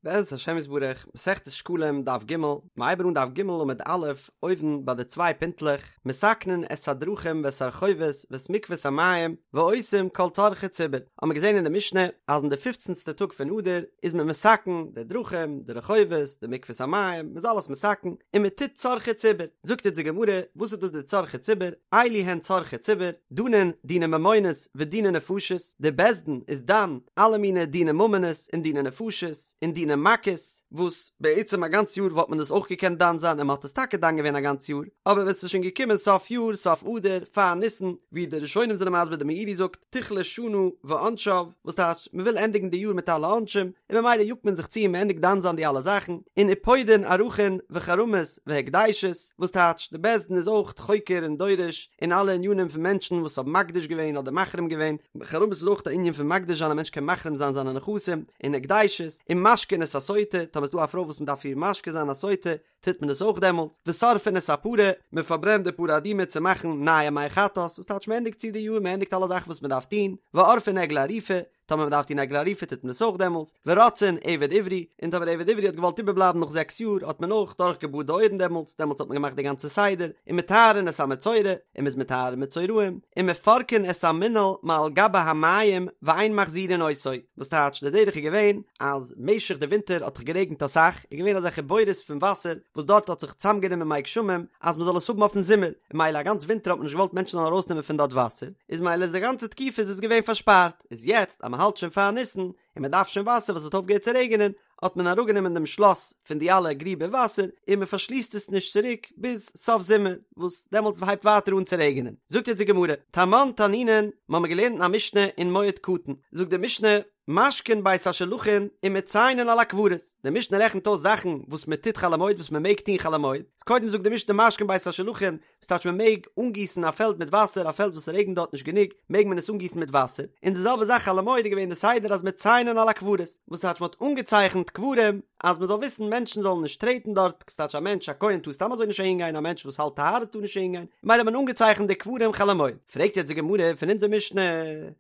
בעזרת השם יתברך, מסכת שקלים דף ג', מ'הייבן אן דף ג' עמוד א', אויבן ביי די צוויי פינטלעך, מתקנין את הדרכים ואת הרחובות ואת מקוות המים, ועושים כל צרכי ציבור, האבן מיר געזען אין די משנה אז אין די פופצנסטע טאג פון אדר איז מען מתקן די דרכים, די רחובות, די מקוות המים, מ'איז אלעס מתקן, און מ'טוט צרכי ציבור. זאגט אונז די גמרא, וואס איז דאס די צרכי ציבור? אלו הן צרכי ציבור, דנין דיני ממונות ודיני נפשות, די בית דין איז דן אלע מיני דיני ממונות און דיני נפשות און דיני מכות, וואס בעצם א גאנץ יאר וואלט מען דאס אויך געקענט דן זיין און מען האט עס טאקע דן געווען א גאנץ יאר, אבער ווען ס'איז שוין געקומען סוף יאר, סוף אדר, פאר ניסן, ווי די ראשונים זענען מסביר די מאירי זאגט, תכלה שנה ועונשה, וואס טייטש מען וויל ענדיגן די יאר מיט אלע עונשים, און ממילא יאגט מען זיך צו און מען ענדיגט דן זיין די אלע זאכן, און ופודין ערכין וחרמות והקדשות. וואס טייטש די בית דין איז אויך חוקר און דורש אין אלע ענינים פון מענטשן וואס האבן מקדיש געווען אדער מחרים געווען, חרמות איז אויך א ענין פון מקדיש זיין א מענטש קען מחרים זיין זיינע נכסים, און הקדשות, און משקין את הסוטה, טאמער איז דא א פרוי וואס מען דארף איר משקה זיין א סוטה, טוט מען עס אויך דעמאלטס, ושורפין את הפרה, מען פארברענט די פרה אדומה צו מאכן נייע מי חטאת, וואס טייטש מען ענדיגט צו די יאר, מען ענדיגט אלע זאכן וואס מען דארף טון, ועורפין עגלה ערופה, טאמער מען דארף טון עגלה ערופה טוט מען עס אויך דעמאלס, ורוצעין עבד עברי, און טאמער עבד עברי האט געוואלט איבערבלייבן נאך זעקס יאר האט מען אויך דורך געבארט די אויערן דעמאלס, דעמאלס האט מען געמאכט די גאנצע סדר, ומטהרין את המצורע, און מען איז מטהר מצורעים, ומפרקין את המנעל מעל גבי המים ואין מחזירין אותו, וואס טייטש די דרך איז געווען אז משך די ווינטער האט דאך גערעגנט אסאך, איז געווען אזעלכע בורות פון וואסער וואס דארט האט זיך צוזאמגענומען מי גשמים אז מען זאל עס האבן אויפן זומער, און מילא א גאנץ ווינטער האט מען נישט געוואלט מענטשן זאלן ארויסנעמען פון דארט וואסער, איז מילא איז די גאנצע תקופה איז עס געווען פארשפארט. איז יעצט אז מען האלט שוין פאר ניסן און מען דארף שוין וואסער וואס האט אויפגעהערט צו רעגענען, האט מען אראפגענומען דעם שלאס פון די אלע גריבער וואסער און מען פארשליסט עס נישט צוריק ביז סוף זומער וואס דעמאלטס הייבט ווייטער אן צו רעגענען. זאגט יעצט די גמרא, תמן תנינן, מיר האבן געלערנט אין א משנה אין מועד קטן, זאגט די משנה, משקין בית השלחין ומציינין על הקברות, די משנה רעכנט אויס זאכן וואס מען טוט חול המועד וואס מען מעג טון חול המועד, איז קודם זאגט די משנה משקין בית השלחין, וואס טייטש מען מעג אנגיסן א פעלד מיט וואסער, א פעלד וואס ס'רעגנט דארט נישט גענוג, מעג מען עס אנגיסן מיט וואסער, און די זעלבע זאך חול המועד איז געווען די סדר אז מציינין על הקברות, וואס טייטש מען האט אנגעצייכנט קברים אז מען זאל וויסן מענטשן זאלן נישט טרעטן דארט, ס'טייטש א מענטש א כהן טאר סתם אזוי נישט אהין גיין, א מענטש וואס האלט טהרות טאר נישט אהין גיין, ממילא האט מען אנגעצייכנט די קברים חול המועד. פרעגט יעצט די גמרא פון אונזער משנה,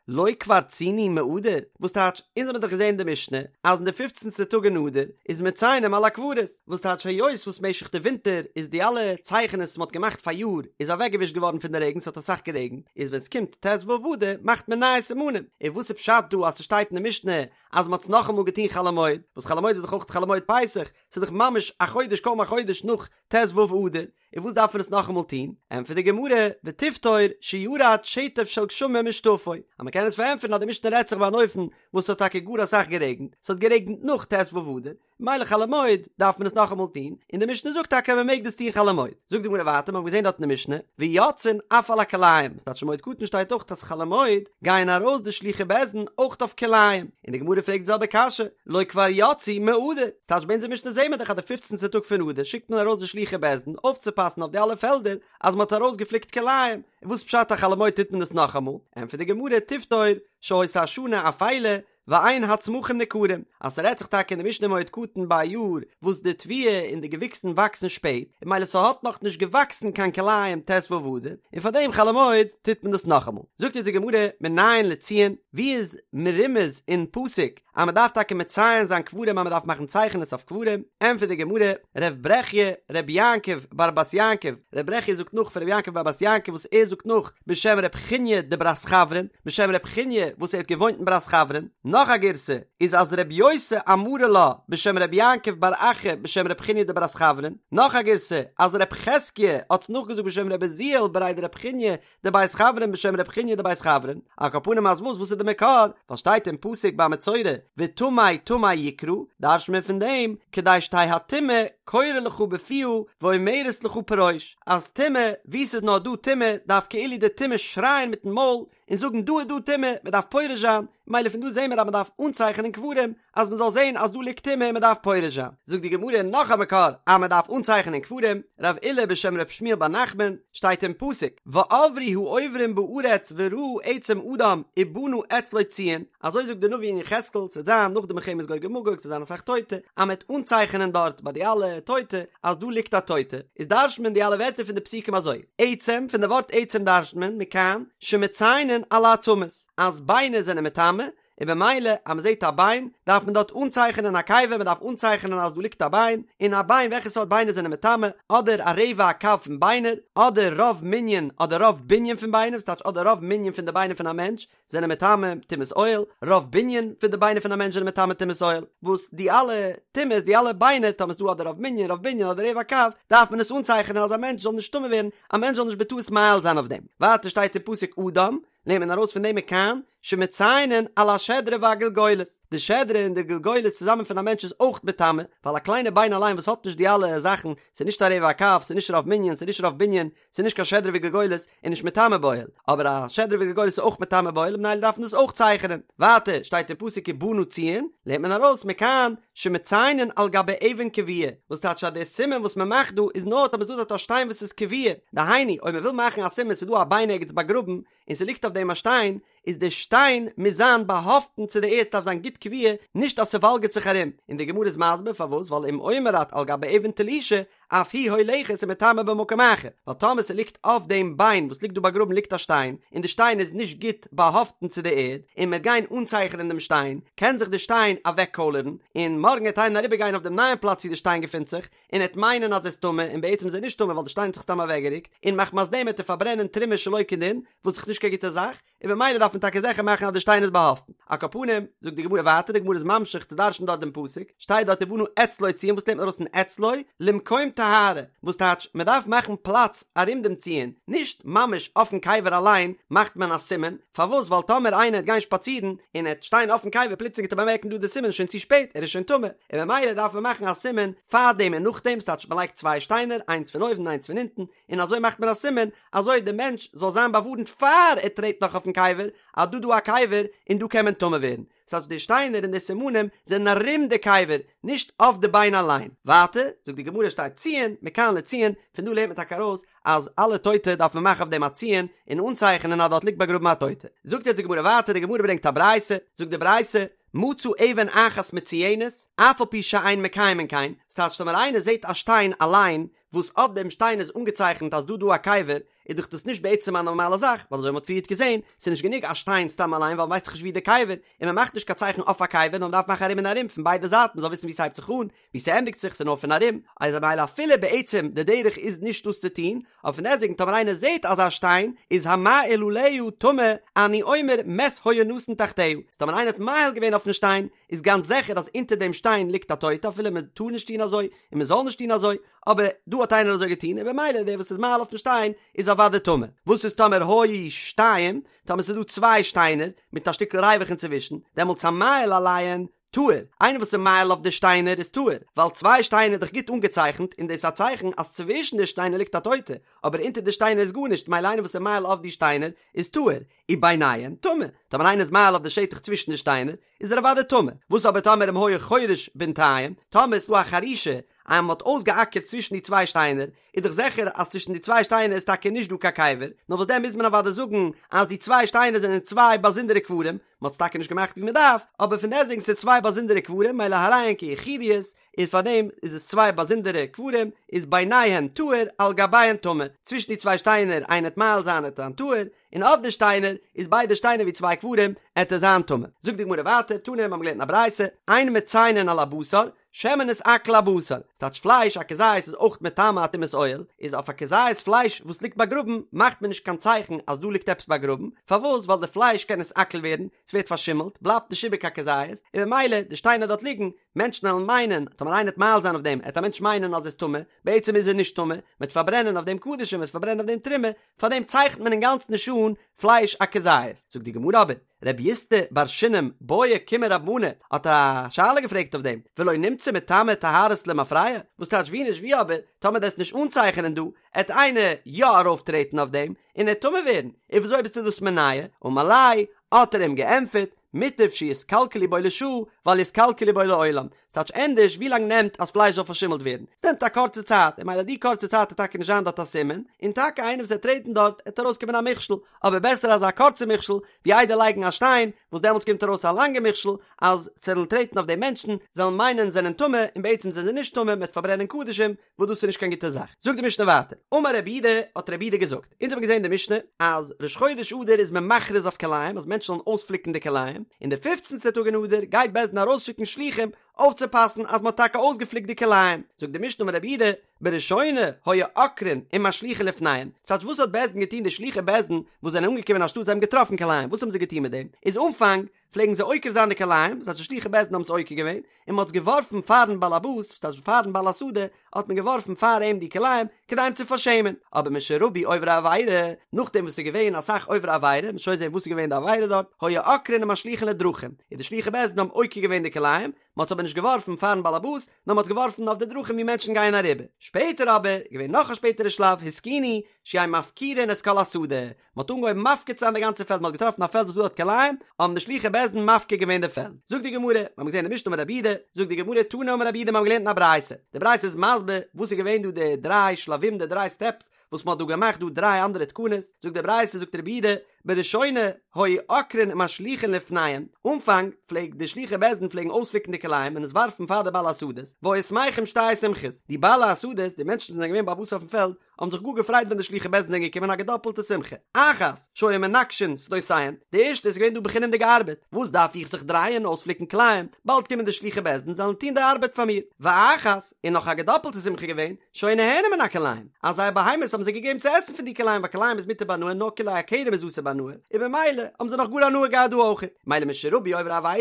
לא כבר ציינו מאדר, וואס טייטש אונז האבן דאך געזען אין די משנה אז אין די פופצנסטע טאג אין אדר איז מציינים על הקברות, וואס טייטש היות וואס משך די ווינטער איז די אלע צייכענעס וואס מ'האט געמאכט פאריאר איז אוועקגעווישט געווארן פון די רעגן ס'האט אסאך גערעגנט איז ווען ס'קומט ט"ו אדר מאכט מען נייע סימנים און וואס איז פשט דא אז ס'שטייט אין די משנה אז מ'האט עס נאכאמאל געטון חול המועד וואס חול המועד איז דאך אויך חול המועד פסח ס'איז דאך ממש א חודש קוים א חודש נאך ט"ו אדר און וואס דארף מען עס נאכאמאל טון? ענטפערט די גמרא, ותפתור שירד שטף של גשמים ושטפו, אז מ'קען עס פארענטפערן אז די משנה רעדט זיך ביי אן אופן וואס ס'האט טאקע גאר אסאך גערעגנט, ס'האט גערעגנט נאך ט"ו אדר, מילא חול המועד דארף מען עס נאכאמאל טון, און די משנה זאגט טאקע אז מען מעג דאס טון חול המועד. זאגט די גמרא ווייטער, מיר האבן געזען דארט אין די משנה, ויוצאין אף על הכלאים, ס'טייטש אין מועד קטן שטייט אויך אז חול המועד גייען ארויס די שלוחי בית דין אויך אויף כלאים, און די גמרא פרעגט די זעלבע קשיא, לא כבר יצאו מאדר, ס'טייטש ביי אונזער משנה זעהן מיר דאך אז די פופצנטע טאג פון אדר שיקט מען ארויס די שלוחי בית דין אויפצופאסן אויף די אלע פעלדער אז מען האט ארויסגעפליקט כלאים, און וואס פשט אז חול המועד טוט מען עס נאכאמאל? ענטפערט די גמרא, תפתור שהיתה השנה אפילה, ואין הצמחים ניכרים, אז ס'רעדט זיך טאקע אין די משנה מועד קטן ביי א יאר וואס די תבואה און די געוויקסן וואקסן שפעט, און מילא ס'האט נאך נישט געוואקסן קיין כלאים ט"ו אדר, און פאר דעם חול המועד טוט מען דאס נאכאמאל. זאגט אונז די גמרא מנין לציון, ווי איז מרומז אין פסוק אז מ'דארף טאקע מציין זיין קברים אז מ'דארף מאכן צייכענעס אויף קברים, ענטפערט די גמרא, ר' ברכיה ר' יעקב בר בת יעקב, ר' ברכיה זאגט נאך פון ר' יעקב בר בת יעקב וואס ער זאגט נאך בשם ר' חיניא דברת חברין, בשם ר' חיניא וואס ער האט געוואוינט אין ברת חברין, נאך א גירסא איז אז ר' יוסי אמרה לה בשם ר' יעקב בר אחא בשם ר' חיניא דברת חברין, נאך א גירסא אז ר' חזקיה האט נאכגעזאגט בשם ר' עוזיאל בריה דר' חיניא דבית חברין בשם ר' חיניא דבית חברין, על כל פנים אז וואס וואס איז די מקור? ווייל שטייט אין פסוק ביי מצורע וטמא טמא יקרא, דרש'ט מען פון דעם כדי שתהא הטומאה קורא לך בפיה ואומרת לך פרוש, אז טומאה, וואו ס'איז נאר דא טומאה דארף כאילו די טומאה שרייען מיטן מויל און זאגן דא איז דא טומאה, מען דארף פורש זיין, מילא פון דא זעהן מיר אז מען דארף אנצייכענען קברים אז מען זאל זעהן אז דא ליגט טומאה און מען דארף פורש זיין. זאגט די גמרא נאך א מקור אז מען דארף אנצייכענען קברים, רב אילא בשם ר' שמואל בר נחמן, שטייט אין פסוק, ועברו העוברים בארץ וראו עצם אדם ובנה אצלו ציון, אזוי זאגט די נביא אין יחזקאל, ס'וועט זיין נאך די מלחמת גוג ומגוג, ס'וועט זיין אסאך טויטע, אז מען וועט אנצייכענען דארט ביי די אלע טויטע אז דא ליגט א טויטע, איז דרש'נט מען די אלע ווערטער פון די פסוקים אזוי, עצם, פון די ווארט עצם דרש'נט מען, מכאן, שמציינין על העצמות, אז ביינער זענען מטמא, און במילא אז מען זעט א ביין דארף מען דארט אנצייכענען א קבר, מען דארף אנצייכענען אז דא ליגט א ביין, און א ביין וועלכע סארט ביינער זענען מטמא, אדער א רבע הקב פון ביינער, אדער רוב מנין אדער רוב בנין פון ביינער, וואס טייטש אדער רוב מנין פון די ביינער פון א מענטש זענען מטמא טומאת אוהל, רוב בנין פון די ביינער פון א מענטש זענען מטמא טומאת אוהל, וואס די אלע טומאות די אלע ביינער טאמער ס'דא אדער רוב מנין רוב בנין אדער רבע הקב דארף מען עס אנצייכענען אז א מענטש זאל נישט טמא ווערן, א מענטש זאל נישט בטעות מאהיל זיין אויף דעם. ווייטער שטייט אין פסוק אדם, לערנט מען ארויס פון דעם מכאן שמציינין על השדרה והגלגולת, די שדרה און די גלגולת צוזאמען פון א מענטש איז אויך מטמא, ווייל א קליינע ביין אליין וואס האט נישט די אלע זאכן, ס'איז נישט א רבע הקב, ס'איז נישט רוב מנין, ס'איז נישט רוב בנין, ס'איז נישט קיין שדרה וגלגולת, איז נישט מטמא באוהל, אבער א שדרה וגלגולת איז אויך מטמא באוהל ממילא דארף מען דאס אויך צייכענען. ווייטער שטייט אין פסוק ובנה ציון, לערנט מען ארויס מכאן שמציינין על גבי אבן קבועה, וואס טייטש אז דער סימן וואס מען מאכט דא איז נאר טאמער ס'איז דא דארט א שטיין וואס איז קבועה, דהיינו אויב מען וויל מאכן א סימן ס'איז דא א ביין ערגעץ באגראבן און ס'ליגט אויף דעם א שטיין, איז די שטיין מוז זיין באהאפטן צו די ערד ס'דארף זיין גוט קבועה נישט אז ס'וואלגערט זיך ארום, און די גמרא איז מסביר פארוואס ווייל אם אומר את על גבי אבן תלושה אף היא הולכת ומטמאה במקום אחר, ווייל טאמער ס'ליגט אויף דעם ביין וואס ליגט דא באגראבן ליגט א שטיין, און די שטיין איז נישט גוט באהאפטן צו די ערד, און מ'וועט גיין אנצייכענען דעם שטיין, קען זיך די שטיין אוועקקוילערן, און מארגן וועט איינער אריבערגיין אויף דעם נייעם פלאץ ווי די שטיין געפינט זיך, און ער וועט מיינען אז ער איז טמא, און בעצם איז ער נישט טמא ווייל די שטיין האט זיך סתם אוועקגערוקט, און מחמת דעם וועט ער פארברענען תרומה שלא כדין, וואס איז נישט קיין גוטע זאך, און במילא דארף מען טאקע זיכער מאכן אז די שטיין איז באהאפטן. על כל פנים, זאגט די גמרא ווייטער, די גמרא איז ממשיך צו דרש'ן דארט דעם פסוק, שטייט דארט ובנה אצלו ציון, וואס לערנט מען ארויס פון אצלו? למקום טהרה, וואס טייטש, מען דארף מאכן פלאץ ארום דעם ציון, נישט ממש אויפן קבר אליין מאכט מען א סימן, פארוואס? ווייל טאמער איינער וועט גיין שפאצירן און ער וועט שטיין אויפן קבר פלוצלינג וועט ער באמערקן דא די סימן איז שוין צו שפעט, ער איז שוין טמא, און במילא דארף מען מאכן א סימן פאר דעם און נאכדעם, ס'טייטש מען לייגט צוויי שטיינער, איינס פון אויבן און איינס פון אונטן, און אזוי מאכט מען א סימן אזוי די מענטש זאל זיין באווארנט פאר ער טרעט נאך אויפן קבר אז דא דא א קבר און דא קען מען טמא ווערן, ס'טייטש די שטיינער און די סימנים זענען ארום די קבר נישט אויף די ביין אליין. ווייטער זאגט די גמרא שטייט ציון מכאן לציון, פון דא לערנט מען טאקע ארויס אז אלע טויטע דארף מען מאכן אויף דעם א ציון און אנצייכענען אז דארט ליגט באגראבן א טויטע. זאגט יעצט די גמרא ווייטער, די גמרא ברענגט א ברייתא, זאגט די ברייתא, מצא אבן אחת מצויינת, אף על פי שאין מקיימין כן, ס'טייטש טאמער איינער זעט א שטיין אליין וואס אויף דעם שטיין איז אנגעצייכנט אז דא דא א קבר, איז דאך דאס נישט בעצם א נארמאלע זאך, ווייל אזוי ווי מ'האט פריערט געזען, ס'איז נישט גענוג א שטיין סתם אליין ווייל מ'ווייסט דאך נישט ווי די קבר, און מ'מאכט נישט קיין צייכן אויף א קבר נאר מ'דארף מאכן ארום און ארום פון ביידע זייטן מ'זאל וויסן ווי ס'הייבט זיך אן, ווי ס'ענדיגט זיך, ס'איז נאר פון ארום, איז ממילא אפילו בעצם די דרך איז נישט דאס צו טון, אבער פון דעסטוועגן טאמער איינער זעט אזא שטיין, איז המאהיל עליה טמא, אני אומר מת היה נתון תחתיה, אז טאמער איינער האט מאהיל געווען אויפן שטיין, איז גאנץ זיכער אז אונטער דעם שטיין ליגט א טויטע אפילו מ'טאר נישט טון אזוי, און מ'זאל נישט טון אזוי, אבער דא האט איינער אזוי געטון און במילא דער וואס איז מאהיל אויפן שטיין איז אוודאי טמא. וואס איז טאמער היו שתיים, טאמער ס'איז דא צוויי שטיינער מיט א שטיקל ריווח אינצווישן, דעמאלטס המאהיל עליהן טהור, איינער וואס איז מאהיל אויף די שטיינער איז טהור, ווייל צוויי שטיינער איז דאך גוט אנגעצייכנט און דאס איז א צייכן אז צווישן די שטיינער ליגט א טויטע, אבער אונטער די שטיינער איז גארנישט מילא איינער וואס איז מאהיל אויף די שטיינער איז טהור, וביניהן טמא, טאמער איינער איז מאהיל אויף די שטח צווישן די שטיינער איז ער אוודאי טמא, וואס אבער טאמער אם היה חורש בינתיים, טאמער איז דא א חרישה אז מען האט אויסגעאקערט צווישן די צוויי שטיינער, איז דאך זיכער אז צווישן די צוויי שטיינער איז טאקע נישט דא קיין קבר, נאר וואס דען מוז מען אוודאי זאגן אז די צוויי שטיינער זענען צוויי באזונדערע קברים, מען האט עס טאקע נישט געמאכט ווי מען דארף, אבער פון דעסטוועגן ס'איז צוויי באזונדערע קברים מילא הרי הן כיחידיות, און פארדעם איז עס צוויי באזונדערע קברים, איז ביניהן טהור על גביהן טמא, צווישן די צוויי שטיינער איינער וועט מאהיל זיין עט זיין טהור, און אויף די שטיינער איז ביידע שטיינער ווי צוויי קברים עט ער זיין טמא. זאגט די גמרא ווייטער, תנא מיר האבן געלערנט אין א ברייתא, אין מציינין על הבשר, שמא נתעכל הבשר, ס'טייטש פלייש א כזית איז אויך מטמא א טומאת אוהל, איז אויף א כזית פלייש וואס ליגט באגראבן מאכט מען נישט קיין צייכן אז דא ליגט עפעס באגראבן, פארוואס ווייל די פלייש קען נתעכל ווערן, ס'ווערט פארשימלט, בלייבט נישט איבער קיין כזית, און במילא די שטיינער דארט ליגן, מענטשן וועלן מיינען, טאמער איינער וועט מאהיל זיין אויף דעם, עט א מענטש מיינען אז ער איז טמא, בעצם איז ער נישט טמא, מ'וועט פארברענען אויף דעם קדשים, מ'וועט פארברענען אויף דעם תרומה, פאר דעם צייכנט מען אינגאנצן נישט אן פלייש א כזית. זאגט די גמרא אבער, רב יוסטא בר שינם בעא קומי רב מנא האט א שאלה געפרעגט אויף דעם, ולא נמצא מטמא טהרות למפרע? וואס טייטש ווי נישט ווי אבער, טאמער דו וועסט נישט אנצייכענען דא, עט איינער יא ארויפטרעטן אויף דעם, און ער עט טמא ווערן, און וויאזוי ביסטו דאס מונע? אמר ליה, האט ער אים געענטפערט, מוטב שיתקלקלו בו לשעה, ואל יתקלקלו בו לעולם. ס'טייטש ענדערש ווי לאנג נעמט אז פלייש זאל פארשימלט ווערן? ס'נעמט א קורצע צייט, און ממילא די קורצע צייט וועט טאקע נישט זיין דארט א סימן, און טאקע איינער וואס וועט טרעטן דארט עט ארויסקומען א מכשול, אבער בעסער אזא קורצע מכשול ווי איידער לייגן א שטיין וואס דעמאלטס קומט ארויס א לאנגע מכשול אז ס'וועלן טרעטן אויף די מענטשן זאלן מיינען זענען טמא און בעצם זענען זיי נישט טמא מ'וועט פארברענען קדשים וואס דאס איז נישט קיין גוטע זאך. זאגט די משנה ווייטער, אמר רבי יהודה, האט רבי יהודה געזאגט, אונז האבן געזען די משנה אז ראש חודש אדר איז מען מכריז אויף כלאים אז מענטשן זאלן אויספליקן די כלאים, און די פופצנטע טאג אין אדר גייט בית דין ארויסשיקן שלוחים אויפצופאסן אז מען האט טאקע אויסגעפליקט די כלאים. זאגט די משנה אמר רבי יהודה, בראשונה היו עוקרין ומשליכין לפניהם, ס'טייטש וואס האט בית דין געטון די שלוחי בית דין וואס זענען אנגעקומען אין א שטאט זיי האבן געטראפן כלאים וואס האבן זיי געטון מיט דעם? איז אנפאנג פלעגן זיי עוקר זיין די כלאים, ס'טייטש די שלוחי בית דין האבן עס עוקר געווען, און מ'האט עס געווארפן פארן באלעבאס, ס'טייטש פארן בעל השדה, האט מען געווארפן פאר אים די כלאים, כדי אים צו פארשעמען. אבער משרבו עוברי עבירה, נאכדעם וואס ס'איז געווען אסאך עוברי עבירה, מ'וועט שוין זען וואס איז געווען די עבירה דארט, היו עוקרין ומשליכין לדרכים, און די שלוחי בית דין האבן עוקר געווען די כלאים, מ'האט עס אבער נישט געווארפן פארן באלעבאס, נאר מ'האט עס געווארפן אויף די דרכים ווי מענטשן גייען אריבער. שפעטער אבער, איז געווען נאך א שפעטערע שלב, התקינו, שיהו מפקירין את כל השדה, מען האט אנגעהויבן מפקיר צו זיין די גאנצע פעלד, מען האט געטראפן א פעלד וואס דא האט כלאים, האבן די שלוחי בית דין מפקיר געווען די פעלד. זאגט די גמרא, מיר האבן געזען אין די משנה אמר רבי יהודה, זאגט די גמרא תנא אמר רבי יהודה מיר האבן געלערנט אין א ברייתא, די ברייתא איז מסביר וואס איז געווען דא די דריי שלבים די דריי סטעפס וואס מען האט דא געמאכט דא דריי אנדערע תקנות, זאגט די ברייתא זאגט רבי יהודה, בראשונה היו עוקרין ומשליכין לפניהם, אנפאנג פלעגט די שלוחי בית דין פלעגן אויספליקן די כלאים און עס ווארפן פאר די בעלי השדות, והיו שמחים שתי שמחות, די בעלי השדות, די מענטשן וואס זענען געווען בעל הבית אויפן פעלד, האבן זיך גאר געפרייט ווען די שלוחי בית דין זענען געקומען א געדאפלטע שמחה. אחת, שהיו מנקשין שדותיהן, די ערשטע איז געווען דא בחינם'דיגע ארבעט, וואס דארף איך זיך דרייען אויספליקן כלאים, באלד קומען די שלוחי בית דין זאלן טון די ארבעט פאר מיר. ואחת, און נאך א געדאפלטע שמחה געווען, שהיו נהנין מן הכלאים, אז זייער בהמות האבן זיי געגעבן צו עסן פון די כלאים ווייל כלאים איז מותר בהנאה נאר כלאי הכרם איז אסור בהנאה, און במילא האבן זיי נאך גאר הנאה געהאט דא אויכעט. מילא משרבו עוברי עבירה,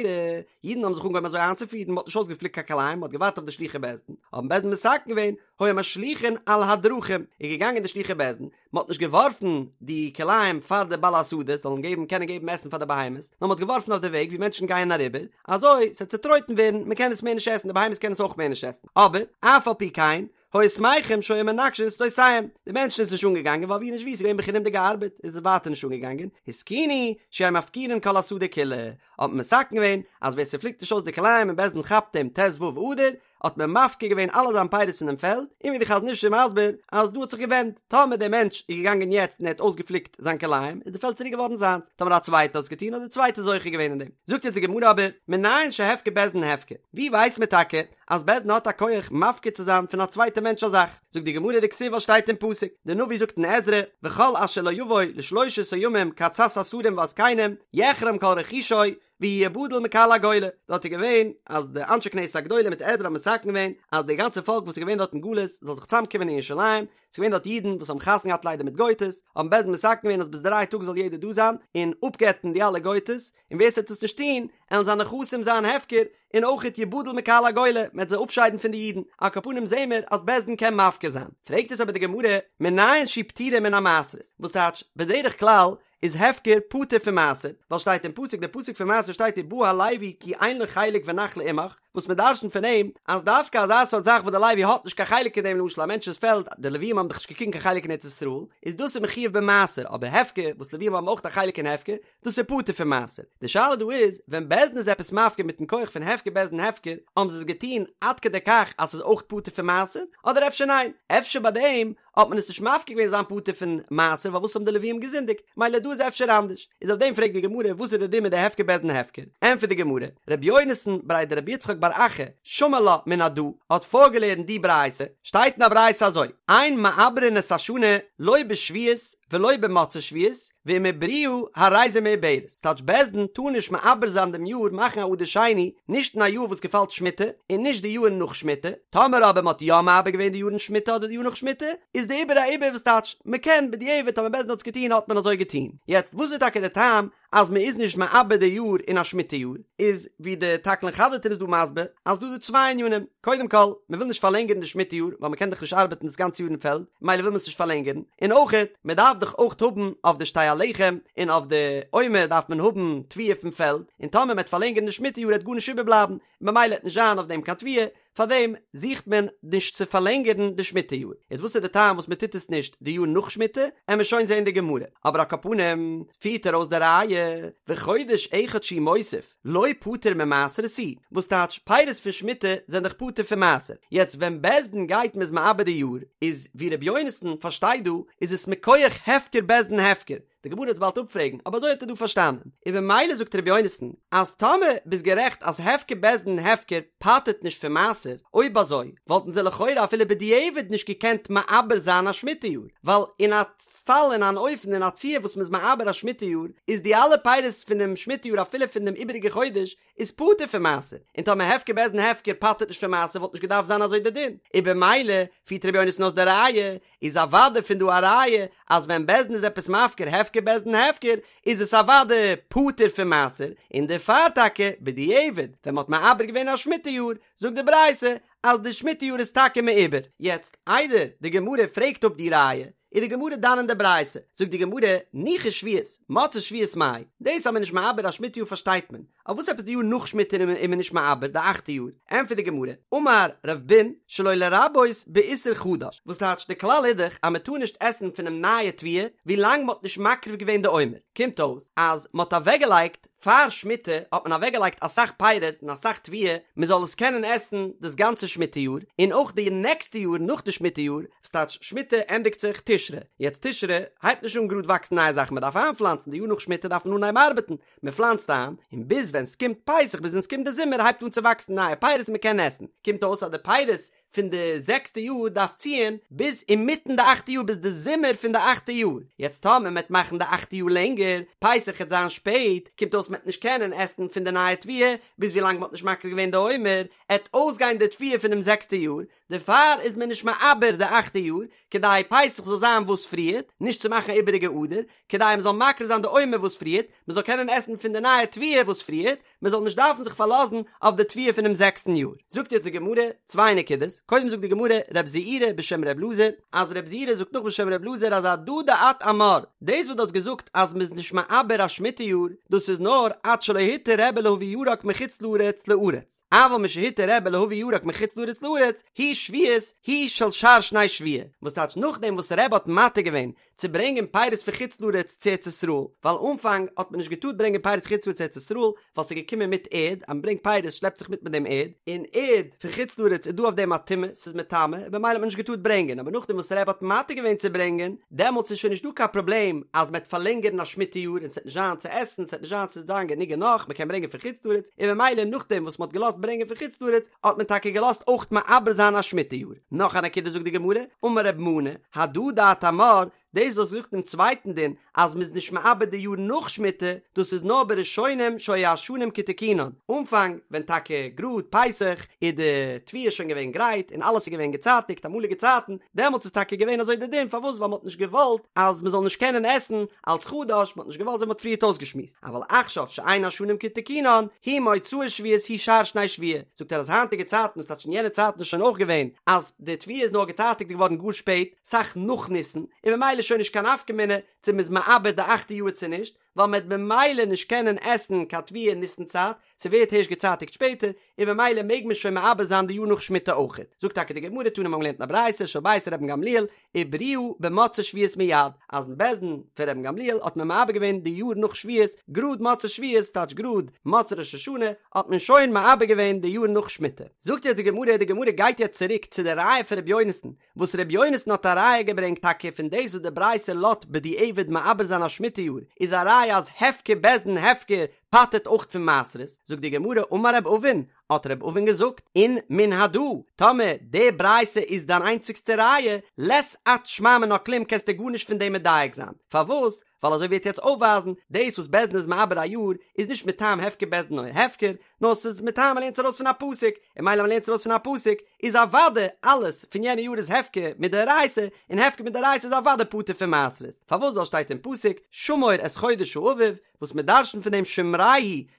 אידן האבן זיך אנגעהויבן אזוי איינצופירן, מ'האט נישט אויסגעפליקט קיין כלאים, מ'האט געווארט אויף די שלוחי בית דין, האבן בית דין מתקן געווען, היו משליכין על הדרכים, איז געגאנגען די שלוחי בית דין, מען האט נישט געווארפן די כלאים פאר די בעלי השדות זאלן געבן קענען געבן עסן פאר די בהמות, נאר מען האט געווארפן אויף די וועג ווי מענטשן גייען אריבער, אזוי ס'וועט צוטרויטן ווערן, מען קען עס מער נישט עסן, די בהמות קענען עס אויך מער נישט עסן, אבער אף על פי כן, היו שמחים שהיו מנקשין שדותיהם, די מענטשן איז נישט אנגעגאנגען ווייל ווי נישט ווי ס'איז געווען בחינם'דיגע ארבעט איז עס ווייטער נישט אנגעגאנגען, התקינו שיהו מפקירין כל השדה כולה, האט מען מתקן געווען אז ווער ס'פליקט נישט אויס די כלאים און בית דין כאפט אים ט"ו אדר, האט מען מפקיר געווען אלע זיין פירות פון דעם פעלד, און ווי די חזון איש איז מסביר אז דא האט זיך געווענדט, טאמער דער מענטש איז געגאנגען יעצט און ער האט אויסגעפליקט זיין כלאים איז די פעלד צוריק געווארן זיינס, טאמער א צווייטער האט עס געטון האט דער צווייטער זוכה געווען אין דעם. זאגט יעצט די גמרא אבער, מנין שהפקר בית דין הפקר, ווי ווייסט מען טאקע אז בית דין האט א כח מפקיר צו זיין פון א צווייטע מענטש א זאך? זאגט די גמרא דכתיב וואס שטייט אין פסוק, די נביא זאגט אין עזרא, וכל אשר לא יבוא לשלושת הימים כעצת השרים והזקנים, יחרם כל רכושו, והוא יבדל מקהל הגולה, דארט איז געווען אז די אנשי כנסת הגדולה מיט עזרא האבן מתקן געווען אז די גאנצע פאלק וואס איז געווען דארט אין גלות זאל זיך צוזאם קומען אין ירושלים, ס'איז געווען דארט אידן וואס האבן חתונה געהאט ליידער מיט גויטעס, האבן בית דין מתקן געווען אז ביז דריי טאג זאל יעדער דא זיין און אפגט'ן די אלע גויטעס, און ווער ס'וועט עס נישט טון, עלן זיינע נכסים זיין הפקר, און אויכעט יבדל מקהל הגולה, מ'עט זיי אפשיידן פון די אידן, על כל פנים זעהן מיר אז בית דין קען מפקיר זיין. פרעגט עס אבער די גמרא, מנין שהיא פטורה מן המעשרות, וואס טייטש, בדרך כלל איז הפקר פטור פון מעשר, ווייל שטייט אין פסוק די פסוק פון מעשר שטייט ובא הלוי כי אין לו חלק ונחלה עמך, וואס מען דרשנ'ט פון אים אז דווקא אזא סארט זאך וואס די לוי האט נישט קיין חלק אין דעם למשל א מענטש'ס פעלד, די לווים האבן דאך נישט געקריגן קיין חלק אין ארץ ישראל, איז דאס איז מחויב במעשר, אבער הפקר וואס לווים האבן אויך א חלק אין הפקר, דאס איז פטור פון מעשר. די שאלה דא איז, ווען בית דין איז עפעס מפקיר מיטן כח פון הפקר בית דין הפקר, האבן זיי עס געטון עד כדי כך אז ס'איז אויך פטור פון מעשר, אדער אפשר ניין, אפשר ביי דעם האט מען עס נישט מפקיר געווען זיין פטור פון מעשר ווייל וואס האבן די לווים געזינדיגט, מילא דא איז אפשר אנדערש, איז אויף דעם פרעגט די גמרא וואס איז די דין מיט די הפקר בית דין הפקר, ענטפערט די גמרא, רבי יונתן בריה דרבי יצחק בר אחא שמע לה מן הדא האט פארגעלערנט די ברייתא, שטייט אין א ברייתא אזוי, אין מעברין את השנה לא בשביעית ולא במוצאי שביעית, ואם עיברוה הרי זו מעוברת, ס'טייטש בית דין טאר נישט מעבר זיין דעם יאר מאכן א אדר שני, נישט אין א יאר וואס געפאלט שמיטה, און נישט די יאר נאך שמיטה, טאמער אבער מ'האט יא מעבר געווען די יאר אין שמיטה אדער די יאר נאך שמיטה, איז די עיבור א עיבור וואס טייטש מ'קען בדיעבד טאמער בית דין האט עס געטון האט מען אזוי געטון, יעצט וואס איז טאקע די טעם אז מ'איז נישט מעבר די יאר אין א שמיטה יאר, איז ווי די תקלין חדתין איז דא מסביר אז דא איז דא צוויי ענינים, קודם כל מ'וויל נישט פארלענגערן די שמיטה יאר ווייל מ'קען דאך נישט ארבעטן דאס גאנצע יאר אין פעלד מילא וויל מען עס נישט פארלענגערן, און אויכעט מ'דארף דאך אויך האבן אויף די שתי הלחם און אויף די עומר דארף מען האבן תבואה פון פעלד, און טאמער מ'עט פארלענגערן די שמיטה יאר עט גארנישט איבערבלייבן, ממילא עט נישט זיין אויף דעם קיין תבואה, פארדעם זוכט מען נישט צו פארלענגערן די שמיטה יאר. יעצט וואס איז די טעם וואס מען טוט עס נישט די יאר נאך שמיטה, עמער שוין זען די גמרא, אבער על כל פנים פירט ער אויס די ראיה, וחודש אחד שהוא מוסיף לא פטור ממעשרות הוא, וואס טייטש פירות פון שמיטה זענען דאך פטור פון מעשר, יעצט ווען בית דין גייט מ'איז מעבר די יאר, איז ווי ר' יונתן פארשטייט דא איז עס מכח הפקר בית דין הפקר, די גמרא וועט באלד אפפרעגן, אבער אזוי האט ער דא פארשטאנען, און במילא זאגט ר' יונתן אז טאמער ביסט גערעכט אז הפקר בית דין הפקר פטר'ט נישט פון מעשר, אויב אזוי וואלטן זיי לכאורה אפילו בדיעבד נישט געקענט מעבר זיין א שמיטה יאר, ווייל אין א פאל אין אן אופן אין א ציור וואס מ'איז מעבר א שמיטה יאר איז די אלע פירות פונעם שמיטה יאר אפילו פון דעם איבעריגע חודש איז פטור פון מעשר, און טאמער הפקר בית דין הפקר פטר'ט נישט פון מעשר וואלט נישט געדארפט זיין אזוי די דין, און במילא פירט ר' יונתן אויס די ראיה, איז אוודאי פון דא א ראיה אז ווען בית דין איז עפעס מפקיר הפקר בית דין הפקר איז עס אוודאי פטור פון מעשר, און דערפאר טאקע בדיעבד ווען מ'האט מעבר געווען א שמיטה יאר זאגט די ברייתא אז די שמיטה יאר איז טאקע מעובר. יעצט איידער די גמרא פרעגט אפ די ראיה איז די גמרא דן אין די ברייתא, זאגט די גמרא, ניחא שביעית, מוצאי שביעית מאי, דאס אז מען איז נישט מעבר א שמיטה יאר פארשטייט מען, אבער וואס עפעס די יאר נאך שמיטה איז מען נישט מעבר די אכטע יאר, ענטפערט די גמרא, אמר רב בון שלא לרבות באיסור חדש, וואס טייטש די כלל איז דאך אז מען טאר נישט עסן פונעם נייע תבואה ווילאנג מען האט נישט מקריב געווען די עומר, קומט אויס אז מען האט אוועקגעלייגט פאר שמיטה האט מען אוועקגעלייגט אסאך פירות און אסאך תבואה מען זאל עס קענען עסן דאס גאנצע שמיטה יאר, און אויך די נעקסטע יאר נאך די שמיטה יאר, ס'טייטש שמיטה ענדיגט זיך תשרי, יעצט תשרי הייבט נישט אן גראד וואקסן נייע זאכן מען דארף איינפלאנצן, די יאר נאך שמיטה דארף מען אנהייבן ארבעטן, מען פלאנצט איין, און ביז ווען ס'קומט פסח ביז ווען ס'קומט די זומער הייבט אן צו וואקסן נייע פירות און מען קען עסן, קומט אויס אז די פירות פון די זעקסטע יאר דארף ציען ביז אינמיטן די אכטע יאר ביז די זומער פון די אכטע יאר, יעצט טאמער מ'עט מאכן די אכטע יאר לענגער, פסח עט זיין שפעט, קומט אויס מ'עט נישט קענען עסן פון די נייע תבואה ביז ווילאנג מ'האט נישט מקריב געווען די עומר, עט אויסגיין די תבואה פונעם זעקסטע יאר, דערפאר איז מען נישט מעבר די אכטע יאר, כדי פסח זאל זיין וואס פריערט, נישט צו מאכן א איבעריגע אדר, כדי מ'זאל מקריב זיין די עומר וואס פריערט, מ'זאל קענען עסן פון די נייע תבואה וואס פריערט, מען זאל נישט דארפן זיך פארלאזן אויף די תבואה פונעם זעקסטן יאר. זאגט יעצט די גמרא צוויי נקודות, קודם זאגט די גמרא רב זעירא בשם רב אלעזר, אז רב זעירא זאגט נאך בשם רב אלעזר אז הדא דאת אמר, דאס וואס דו האסט געזאגט אז מען איז נישט מעבר א שמיטה יאר, דאס איז נאר עד שלא התיר רבי להביא ירק מחוץ לארץ לארץ, אבל משהתיר רבי להביא ירק מחוץ לארץ לארץ, היא שביעית היא של שאר שני שבוע, וואס טייטש נאכדעם וואס רבי האט מתיר געווען צו ברענגען פירות פון חוץ לארץ צו ארץ ישראל, ווייל אנפאנג האט מען נישט געטארט ברענגען פירות חוץ לארץ צו ארץ ישראל, ווייל ס'איז געקומען מיט ערד, אז מ'ברענגט פירות שלעפט זיך מיט מיט דעם ערד, און ערד פון חוץ לארץ איז דא אויף דעם א טומאה, ס'איז מטמא, און במילא האט מען נישט געטארט ברענגען, אבער נאכדעם וואס רבי האט מתיר געווען צו ברענגען, דעמאלטס איז שוין נישט דא קיין פראבלעם אז מ'עט פארלענגערן א שמיטה יאר און ס'עט נישט זיין צו עסן, ס'עט נישט זיין ס'עט זיין גענוג און נאך, מ'קען ברענגען פון חוץ לארץ, און במילא נאכדעם וואס מ'האט געלאזט ברענגען פון חוץ לארץ, האט מען טאקע געלאזט אויך מעבר זיין א שמיטה יאר. נאך א נקודה זאגט די גמרא, אמר רב מנא, הדא דאת אמר, דאס וואס זאגט דעם צווייטן דין אז מ'איז נישט מעבר די יאר נאך שמיטה, דאס איז נאר בראשונים שהיו השנים כתיקונן, אנפאנג ווען טאקע גראד פסח איז די תבואה שוין געווען גרייט און אלעס איז געווען געצייטיגט אמאליגע צייטן, דעמאלטס איז טאקע געווען אזוי די דין, פארוואס ווייל מ'האט נישט געוואלט אז מ'זאל נישט קענען עסן אלץ חדש, מ'האט נישט געוואלט אזוי מ'האט פריערט אויסגעשמועסט, אבל עכשיו שאין השנים כתיקונן, היא מוצאי שביעית היא שאר שני שבוע, זאגט ער אז היינטיגע צייטן וואס טייטש אין יענע צייטן איז שוין אויך געווען אז די תבואה איז נאר געצייטיגט געווארן גאר שפעט, סאך נאך ניסן, און ממילא איז שוין נישט קיין נפקא מינה צו מ'איז מעבר די אכטע יאר צו נישט, ווייל מ'עט במילא נישט קענען עסן קיין תבואה אין ניסן צייט, ס'ווערט הערשט געצייטיגט שפעטער, און ממילא מעג מען שוין מעבר זיין די יאר נאך שמיטה אויכעט. זאגט טאקע די גמרא תנא מ'האבן געלערנט אין א ברייתא של בית רבן גמליאל, עיברוה במוצאי שביעית מיד, אז אין בית דין פון רבן גמליאל האט מען מעבר געווען די יאר נאך שביעית גראד מוצאי שביעית טייטש גראד מוצאי ראש השנה האט מען שוין מעבר געווען די יאר נאך שמיטה. זאגט יעצט די גמרא, די גמרא גייט יעצט צוריק צו די ראיה פון רבי יונתן, וואס רבי יונתן האט א ראיה געברענגט טאקע פון דאס וואס די ברייתא לאט בדיעבד מעבר זיין א שמיטה יאר איז א ראיה אז הפקר בית דין הפקר פטר'ט אויך פון מעשרות, זאגט די גמרא אמר רב אבין, האט רב אבין געזאגט, אין מן הדא, טאמער די ברייתא איז דיין איינציגסטע ראיה, לית את שמע מינה כלום קענסטו גארנישט פון דעם מדייק זיין, פארוואס? ווייל אזוי ווי ער וועט יעצט אויפווייזן, דאס וואס בית דין איז מעבר א יאר איז נישט מטעם הפקר בית דין הפקר, נאר ס'איז מטעם מ'לערנט עס ארויס פון א פסוק, און מילא מ'לערנט עס ארויס פון א פסוק, איז אוודאי אלעס פון יענע יאר איז הפקר מדאורייתא, און הפקר מדאורייתא איז אוודאי פטור פון מעשרות, פארוואס ווייל שטייט אין פסוק שמור את חודש האביב, וואס מ'דרש'נט פון דעם שמרהו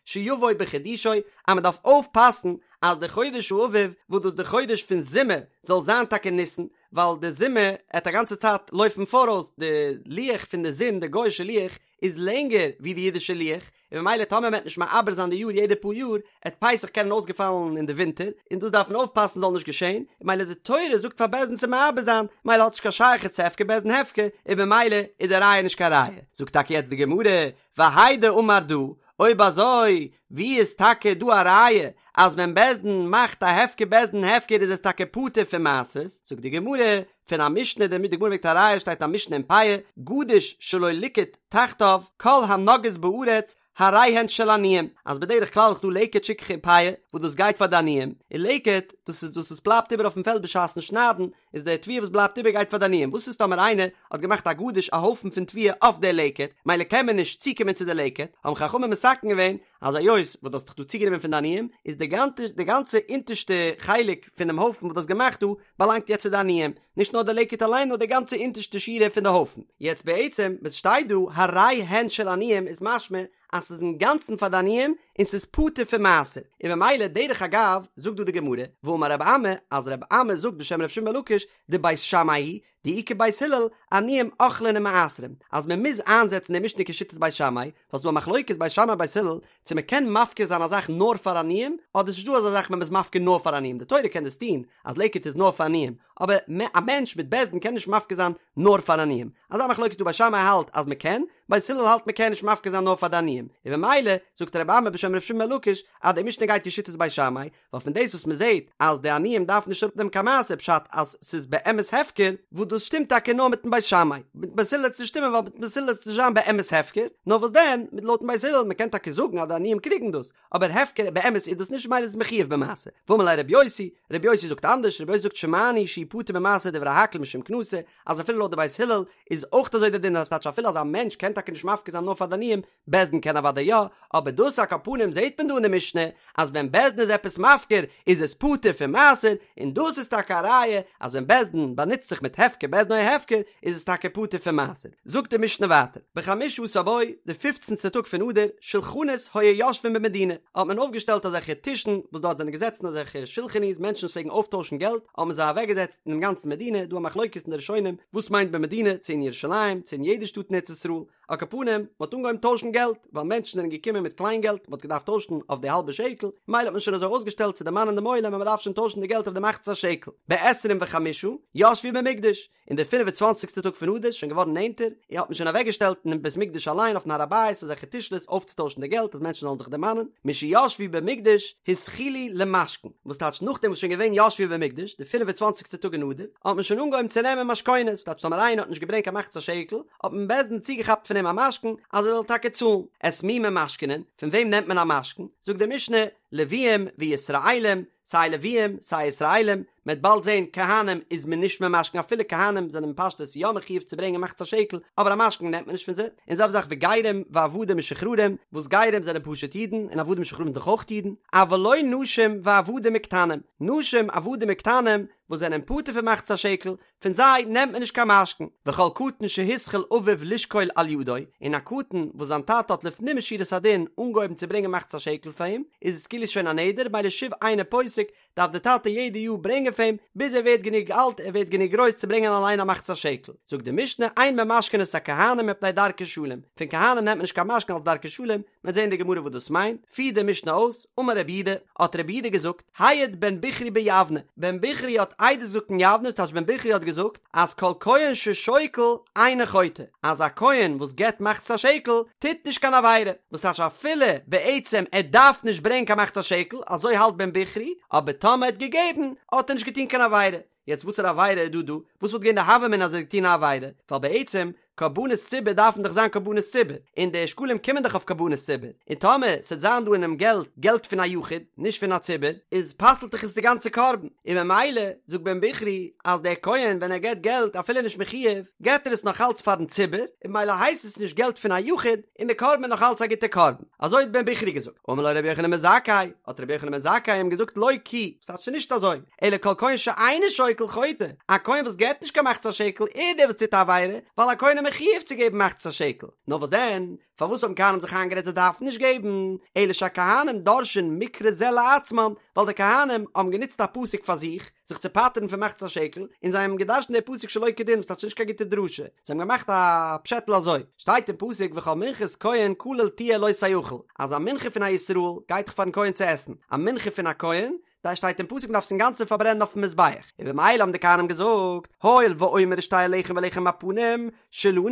שיבוא בחידושו, אז מ'דארף אויפפאסן. אז די חודש האביב וואס דאס איז די חודש פון זומער זאל זיין טאקע ניסן, ווייל די זומער עט א גאנצע צייט לויפן פאראויס, די לוח פון די זון, די גוי'אישע לוח, איז לענגער ווי די אידישע לוח, און ממילא טאמער מ'עט נישט מעבר זיין די יאר יעדע פאר יאר, עט פסח קענען אויסגעפאלן אין די ווינטער, און דאס דארף מען אויפפאסן זאל נישט געשען, און ממילא די תורה זאגט פאר בית דין צו מעבר זיין, ממילא האט נישט קיין שייכות צו הפקר בית דין הפקר, און ממילא איז די ראיה נישט קיין ראיה. זאגט טאקע יעצט די גמרא, והאי דאמר דא, אויב אזוי ווי איז טאקע דא א ראיה אז ווען בית דין מאכט א הפקר בית דין הפקר איז עס טאקע פטור פון מעשרות, זאגט די גמרא, פון א משנה, די גמרא ברענגט א ראיה שטייט א משנה אין פאה, גדיש שלא ליקט תחתיו, כל הנוגעות בארץ הרי הן של עניים, אז בדרך כלל איז דא לקט שכחה און פאה וואס דאס גייט פאר די עניים, און לקט דאס איז דאס וואס בלייבט איבער אויפן פעלד בשעת'ן שניידן, איז די תבואה וואס בלייבט איבער גייט פאר די עניים, וואס איז טאמער איינער האט געמאכט א גדיש א הויפן פון תבואה אויף די לקט, מילא קען מען נישט צוקומען צו די לקט, האבן חכמים מתקן געווען אז היות וואס דו האסט דיך דא צוגענומען פון די עניים, איז די גאנצע די גאנצע אונטערשטע חלק פונעם הויפן וואס דו האסט געמאכט דא, באלאנגט יעצט צו די עניים, נישט נאר די לקט אליין נאר די גאנצע אונטערשטע שורה פון די הויפן. יעצט בעצם וואס שטייט דא הרי הן של עניים איז משמע אז ס'איז אינגאנצן פאר די עניים און ס'איז פטור פון מעשר, און ממילא דרך אגב זאגט דא די גמרא, ואמר רב אמי, אז רב אמי זאגט בשם ר' שמעון בן לקיש, דבית שמאי היא, דאי כבית הלל, עניים אוכלין ומעשרין, אז מען מוז איינזעצן די משנה כשיטת בית שמאי, ווייל ס'דא א מחלוקת בית שמאי בית הלל, צו מען קען מפקיר זיין א זאך נאר פאר עניים, אדער ס'נישט דא אזא זאך מען איז מפקיר נאר פאר עניים, די תורה קען דאס טון, אז לקט איז נאר פאר עניים, אבער א מענטש מיט בית דין קען נישט מפקיר זיין נאר פאר עניים, אזא מחלוקת איז דא בית שמאי האלט אז מען קען, בית הלל האלט מען קען נישט מפקיר זיין נאר פאר די עניים, און ממילא זאגט רבי אמי בשם ר' שמעון בן לקיש אז די משנה גייט כשיטת בית שמאי, ווייל פון דאס וואס מען זעט אז די עניים דארפן נישט אראפנעמען קיין מעשר פשט אז ס'איז באמת הפקר, וואס דאס שטימט טאקע נאר מיטן בית שמאי, מיטן בית הלל וועט עס נישט שטימען ווייל מיטן בית הלל וועט עס נישט זיין באמת הפקר, נאר וואס דען מיט לויטן בית הלל מען קען טאקע זאגן אז די עניים קריגן דאס, אבער הפקר באמת איז דאס נישט ממילא איז עס מחויב במעשר. ואמר ליה רבי יוסי, רבי יוסי זאגט אנדערש, רבי יוסי זאגט שמענו שהוא פטור במעשר דברי הכל משום קנסא, אז אפילו לויט די בית הלל איז אויך אזוי די דין אז טייטש אפילו אז א מענטש קען טאקע נישט מפקיר זיין נאר פאר די עניים, בית דין קען אוודאי יא, אבער דאס על כל פנים זעהט מען דא אין די משנה אז ווען בית דין איז עפעס מפקיר איז עס פטור פון מעשר, און דאס איז טאקע א ראיה אז ווען בית דין באנוצט זיך מיט הפקר בית דין או הפקר איז עס טאקע פטור פון מעשר. זאגט די משנה ווייטער, בחמשה עשר בו, די פופצנטע טאג פון אדר, שלחנות היו יושבין במדינה, האט מען אויפגעשטעלט אזעלכע טישן וואס דארט זענען געזעצן אזעלכע שולחני'ס מענטשן וואס פלעגן אויפטוישן געלט, האט מען זיי אוועקגעזעצט אינעם גאנצן מדינה, דא א מחלוקת אין די ראשונים וואס מיינט במדינה, צו אין ירושלים, צו אין יעדע שטאט אין ארץ ישראל, על כל פנים, מען האט אנגעהויבן טוישן געלט, ווייל מענטשן זענען געקומען מיט קליין געלט, מען האט געדארפט טוישן אויף די האלבע שקל, מילא האט מען שוין אזוי אויסגעשטעלט צו דערמאנען דעם עולם אז מען דארף שוין טוישן די געלט אויף די מחצית השקל. בעשרים וחמשה ישבו במקדש, אין די פינף און צוואנציגסטע טאג פון אדר, שוין געווארן נענטער, האט מען שוין אוועקגעשטעלט אינעם בית מקדש אליין אויפן הר הבית אזעלכע טישלעס אויפצוטוישן די געלט אז מענטשן זאלן זיך דערמאנען, משישבו במקדש התחילו למשכן, וואס טייטש נאכדעם וואס שוין געווען ישבו במקדש, די פינף און צוואנציגסטע טאג אין אדר, האט מען שוין אנגעהויבן צו נעמען משכונות, וואס טייטש טאמער איינער האט נישט געברענגט קיין מחצית השקל, האט מען בית דין צוגעכאפט פון אים א משכון אז ער זאל טאקע צאלן. את מי ממשכנין, פון וועם נעמט מען א משכון? זאגט די משנה, לוויים וישראלים, סיי לוויים סיי ישראלים, מען וועט באלד זען כהנים איז מען נישט ממשכן אפילו כהנים זענען פשטות יא מחויב צו ברענגען מחצית השקל, אבער א משכון נעמט מען נישט פון זיי, און זעלבע זאך וגרים ועבדים משוחררים, וואס גרים זענען פשוט אידן און עבדים משוחררים דאך אויך אידן, אבל לא נשים ועבדים וקטנים, נשים עבדים וקטנים וואס זענען פטור פון מחצית השקל, פון זיי נעמט מען נישט קיין משכון, וכל קטן שהתחיל אביו לשקול על ידו, און א קטן וואס זיין טאטע האט לפנים משורת הדין אנגעהויבן צו ברענגען מחצית השקל פאר אים, איז עס כאילו שוין א נדר, מילא שוב אינו פוסק, דארף דער טאטע יעדע יאר ברענגען פאר אים, ביז ער ווערט גענוג אלט, ער ווערט גענוג גרויס צו ברענגען אליין א מחצית השקל. זאגט די משנה, אין ממשכנין את הכהנים מפני דרכי שלום, פון כהנים נעמט מען נישט קיין משכון אלס דרכי שלום, מען וועט זען אין די גמרא וואס דאס מיינט, פירט די משנה אויס, אמר רבי יהודה, האט רבי יהודה געזאגט, העיד בן בכרי ביבנה, בן בכרי האט עדות געזאגט אין יבנה, טייטש בן בכרי האט געזאגט אז כל כהן ששוקל אינו חוטא, אז א כהן וואס געבט מחצית השקל טוט נישט קיין עבירה, וואס טייטש אפילו בעצם ער דארף נישט ברענגען קיין מחצית השקל, אזוי האלט בן בכרי, אבער טאמער ער האט געגעבן האט ער נישט געטון קיין עבירה. יעצט וואסערע עבירה איז דא דא? וואס וואלט געווען די הוה אמינא אז ער האט געטון א עבירה? ווייל בעצם קרבנות ציבור דארפן דאך זיין קרבנות ציבור, און די שקלים קומען דאך אויף קרבנות ציבור, און טאמער ס'עט זיין דא אינעם געלט געלט פון א יחיד, נישט פון א ציבור, איז פסל'ט דאך עס די גאנצע קרבן, און ממילא זאגט בן בכרי אז דער כהן ווען ער געט געלט אפילו נישט מחויב, געט ער עס נאך אלץ פארן ציבור, און ממילא הייסט עס נישט געלט פון א יחיד, און די קרבן איז נאך אלץ א גוטע קרבן. אזוי האט בן בכרי געזאגט. אמר לו רבי יוחנן בן זכאי, האט רבי יוחנן בן זכאי אים געזאגט לא כי, ס'טייטש ס'איז נישט אזוי, אלא כל כהן שאינו שוקל חוטא, א כהן וואס געבט נישט קיין מחצית השקל איז דער וואס טוט א עבירה, ווייל א כהן איז. מחויב צו געבן מחצית השקל, נאר וואס דען, פארוואס האבן כהנים זיך איינגערעדט זיי דארפן נישט געבן, אלא שהכהנים דורשין מקרא זה לעצמן, ווייל די כהנים האבן גענוצט א פסוק פאר זיך, זיך צו פטר'ן פון מחצית השקל, און זיי האבן געדרש'נט די פסוק שלא כדין, וואס טייטש נישט קיין גוטע דרשה, זיי האבן געמאכט א פשעטל אזוי, שטייט אין פסוק וכל מנחת כהן כליל תהיה לא תאכל, אז א מנחה פון א ישראל גייט דאך פארן כהן צו עסן, א מנחה פון א כהן, דא שטייט אין פסוק מ'דארף עס אינגאנצן פארברענען אויפן מזבח, און במילא האבן די כהנים געזאגט, הואיל ועומר ושתי הלחם ולחם הפנים שלנו,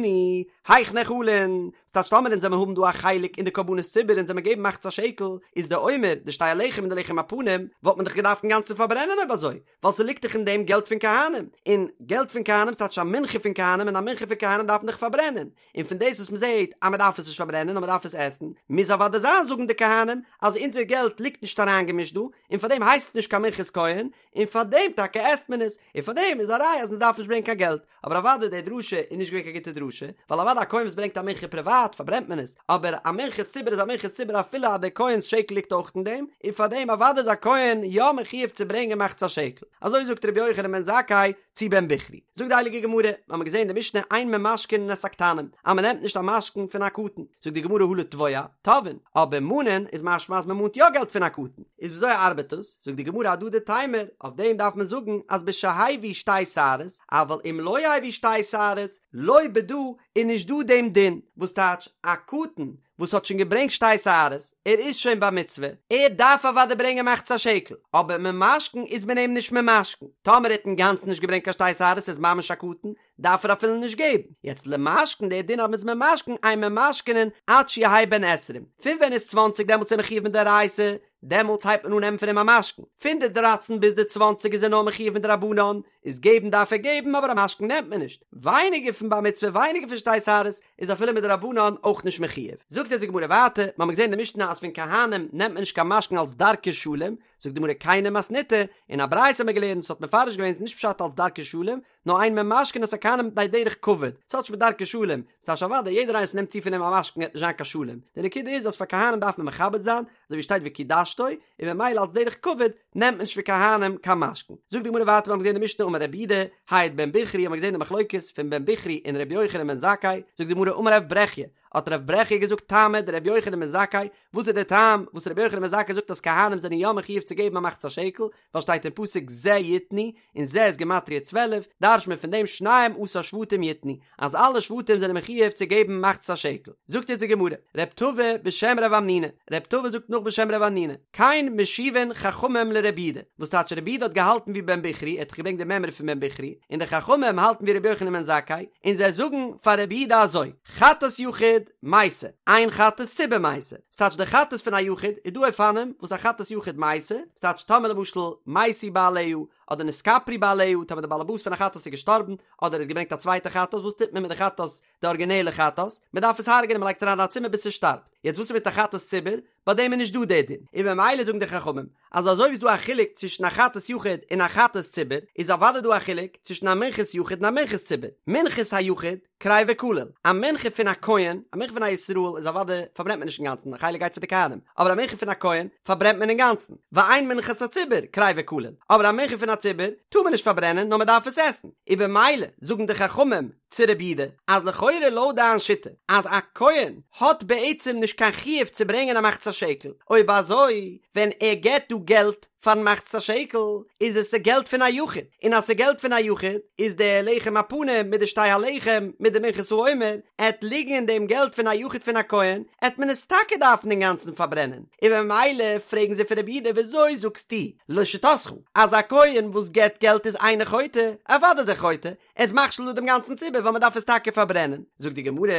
היאך נאכלין, ס'טייטש טאמער אונז וועמיר האבן דא א חלק אין די קרבנות ציבור אונז וועמיר געבן מחצית השקל, איז די עומר, די שתי הלחם און די לחם הפנים, וואלט מען דאך געדארפט אינגאנצן פארברענען אויב אזוי, ווייל ס'ליגט דאך אין דעם געלט פון כהנים, און געלט פון כהנים ס'טייטש א מנחה פון כהנים און א מנחה פון כהנים דארף מען דאך פארברענען, און פון דאס וואס מ'זעט אז מ'דארף עס נישט פארברענען נאר מ'דארף עס עסן, מוז אוודאי זיין זאגן די כהנים אז אונזער געלט ליגט נישט אריינגעמישט דא, און פארדעם הייסט עס נישט קיין מנחת כהן, און פארדעם טאקע עסט מען עס, און פארדעם איז א ראיה אז מ'דארף נישט ברענגען קיין געלט. אבער אוודאי די דרשה איז נישט געווען קיין גוטע דרשה, ווייל אוודאי א כהן וואס ברענגט א מנחה פריוואט פארברענט מען עס, אבער א מנחת ציבור איז א מנחת ציבור אפילו אז דער כהן'ס שקל ליגט אויך אין דעם, און פארדעם אוודאי איז א כהן יא מחויב צו ברענגען מחצית השקל. אזוי זאגט רבי יוחנן בן זכאי צו בן בכרי. זאגט די הייליגע גמרא, מיר האבן געזען די משנה אין ממשכנין את הקטנים, אז מען נעמט נישט א משכון פון א קטן, זאגט די גמרא הא לתבוע, תובעין, אבער מאנען איז משמע אז מען מאנט יא געלט פון א קטן, איז וויאזוי ארבעט דאס? זאגט די גמרא הדדי תימור, אויף דעם דארף מען זאגן אז בשהביא שתי שערות, אבל אם לא הביא שתי שערות, לא בדא איז נישט דא דעם דין, וואס טייטש א קטן וואס האט שוין געברענגט שתי שערות, ער איז שוין בר מצוה, ער דארף אוודאי ברענגען מחצית השקל, אבער ממשכן איז מען אים נישט ממשכן, טאמער ער האט אינגאנצן נישט געברענגט קיין שתי שערות איז ממש א קטן, דארף ער אפילו נישט געבן, יעצט למשכן דער דין אז מ'איז ממשכן אין ממשכנין עד שיהא בן עשרים, פון ווען איז צוואנציג דעמאלטס איז ער מחויב מדאורייתא, דעמאלטס הייבט מען אן נעמען פון אים א משכון, פון די דרייצן ביז די צוואנציג איז ער נאר מחויב מדרבנן, איז געבן דארף ער געבן אבער א משכון נעמט מען נישט, ווייניגער פון בר מצוה ווייניגער פון שתי שערות איז אפילו מדרבנן אויך נישט מחויב. זאגט אונז די גמרא ווייטער, מ'האמיר געזען אין די משנה אז פון כהנים נעמט מען נישט קיין משכון אלס דרכי שלום, זאגט די גמרא כיני מתניתא, אין א ברייתא האמיר געלערנט וואס האט מפרש געווען ס'איז נישט פשט אלס דרכי שלום, נאר אין ממשכנין את הכהנים מפני דרך כבוד, ס'האט נישט מיט דרכי שלום, ס'טייטש אוודאי יעדער איינער וואס נעמט צו פון אים א משכון וועט נישט זיין קיין שלום, די נקודה איז אז פאר כהנים דארף מען מכבד זיין, אזוי ווי שטייט וקדשתו, און ממילא אלס דרך כבוד נעמט מען נישט פון כהנים קיין משכון. זאגט די גמרא ווייטער מיר האבן געזען די משנה אמר רבי יהודה, העיד בן בכרי האבן מיר געזען די מחלוקת פון בן בכרי און רבי יוחנן בן זכאי, זאגט די גמרא אמר רב ברכיה, האט רב ברכיה געזאגט טעמא דרבי יוחנן בן זכאי, וואס איז דער טעם וואס רבי יוחנן בן זכאי זאגט אז כהנים זענען יא מחויב צו געבן א מחצית השקל, ווייל שטייט אין פסוק זה יתנו, און זה איז גימטריא 12, דרש'ט מען פון דעם שנים עשר שבטים יתנו, אז אלע שבטים זענען מחויב צו געבן מחצית השקל. זאגט אונז די גמרא, רב טבא בשם רב המנונא, רב טבא זאגט נאך בשם רב המנונא, כן משיבין חכמים לרבי יהודה, וואס טייטש רבי יהודה האט געהאלטן ווי בן בכרי, ער האט דאך געברענגט די מימרא פון בן בכרי, און די חכמים האלטן ווי רבי יוחנן בן זכאי, און זיי זאגן פאר רבי יהודה אזוי, חטאת יחיד, מתה, אין חטאת ציבור מתה. ס'טייטש די חטאת פון א יחיד איז דא אופנים וואס א חטאת יחיד מתה, ס'טייטש טאמער למשל מתו בעליה אדער נתכפרו בעליה טאמער די באלעבאס פון א חטאת איז געשטארבן אדער ער האט געברענגט א צווייטע חטאת וואס טוט מען מיט די חטאת די ארגינעלע חטאת? מ'דארף עס הרג'נען מ'לייגט אריין אין א צימער ביז ס'שטארבט יעצט וואס איז מיט א חטאת ציבור? ביי דעם איז נישט דא די דין און ממילא זאגן די חכמים אז אזוי ווי ס'איז דא א חילוק צווישן א חטאת יחיד און א חטאת ציבור איז אוודאי דא א חילוק צווישן א מנחת יחיד און א מנחת ציבור מנחת היחיד קריבה כליל, א מנחה פון א כהן, א מנחה פון א ישראל איז אוודאי פארברענט מען נישט אינגאנצן, א חלק גייט פאר די כהנים, אבער א מנחה פון א כהן פארברענט מען אינגאנצן, ואין מנחת הציבור קריבה כליל, אבער א מנחה פון א ציבור טאר מען נישט פארברענען נאר מען דארף עס עסן, און במילא זאגן די חכמים צו רבי יהודה אז לכאורה לויט דיין שיטה אז א כהן האט בעצם נישט קיין חיוב צו ברענגען א מחצית השקל, אויב אזוי ווען ער געבט דא געלט פארן מחצית השקל איז עס ס'געלט פון א יחיד, און אז ס'געלט פון א יחיד איז די לחם הפנים מיט די שתי הלחם מיט די מנחת העומר עט ליגן אין דעם געלט פון א יחיד פון א כהן עט מען עס טאקע דארפן אינגאנצן פארברענען, און במילא פרעגן זיי פון רבי יהודה וויאזוי זאגסטו לשיטתך אז א כהן וואס געבט געלט איז אינו חוטא, אוודאי איז ער חוטא, ער איז מכשיל דא דעם גאנצן ציבור ווייל מ'דארף עס טאקע פארברענען, זאגט די גמרא,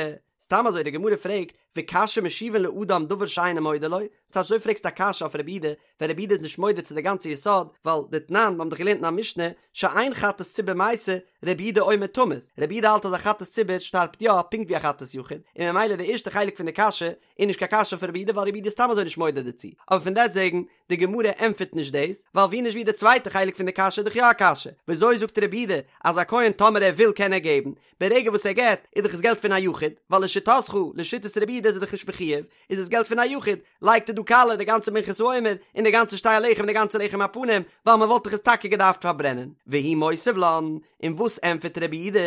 סתם אזוי די גמרא פרעגט וקשיא משיבין לאדם דבר שאינו מודה לו, ס'טייטש אזוי פרעגסטו א קשיא אויף רבי יהודה ווען רבי יהודה איז נישט מודה צו די גאנצע יסוד, ווייל דתנן, מיר האבן דאך געלערנט אין א משנה, שאין חטאת ציבור מתה, רבי יהודה אומר תמות, רבי יהודה האלט אז א חטאת ציבור שטארבט יא פונקט ווי א חטאת יחיד, און ממילא די ערשטע חלק פון די קשיא איז נישט קיין קשיא אויף רבי יהודה ווייל רבי יהודה איז סתם אזוי נישט מודה דערצו, אבער פון דעסטוועגן, די גמרא ענטפערט נישט דאס, ווייל ווי נישט ווי די צווייטע חלק פון די קשיא איז דאך יא א קשיא, וויאזוי זאגט רבי יהודה אז א כהן טאמער ער וויל קען ער געבן, ברגע וואס ער געבט איז דאך עס געלט פון א יחיד, ווייל לשיטתך, לשיטת רבי יהודה. יהודה איז ער דאך נישט מחויב, איז עס געלט פון א יחיד, לייגט ער דא קאלע די גאנצע מנחת העומר, און די גאנצע שתי הלחם און די גאנצע לחם הפנים, ווייל מען וואלט דאך עס טאקע געדארפט פארברענען. והוא מותיב לן, און וואס ענטפערט רבי יהודה?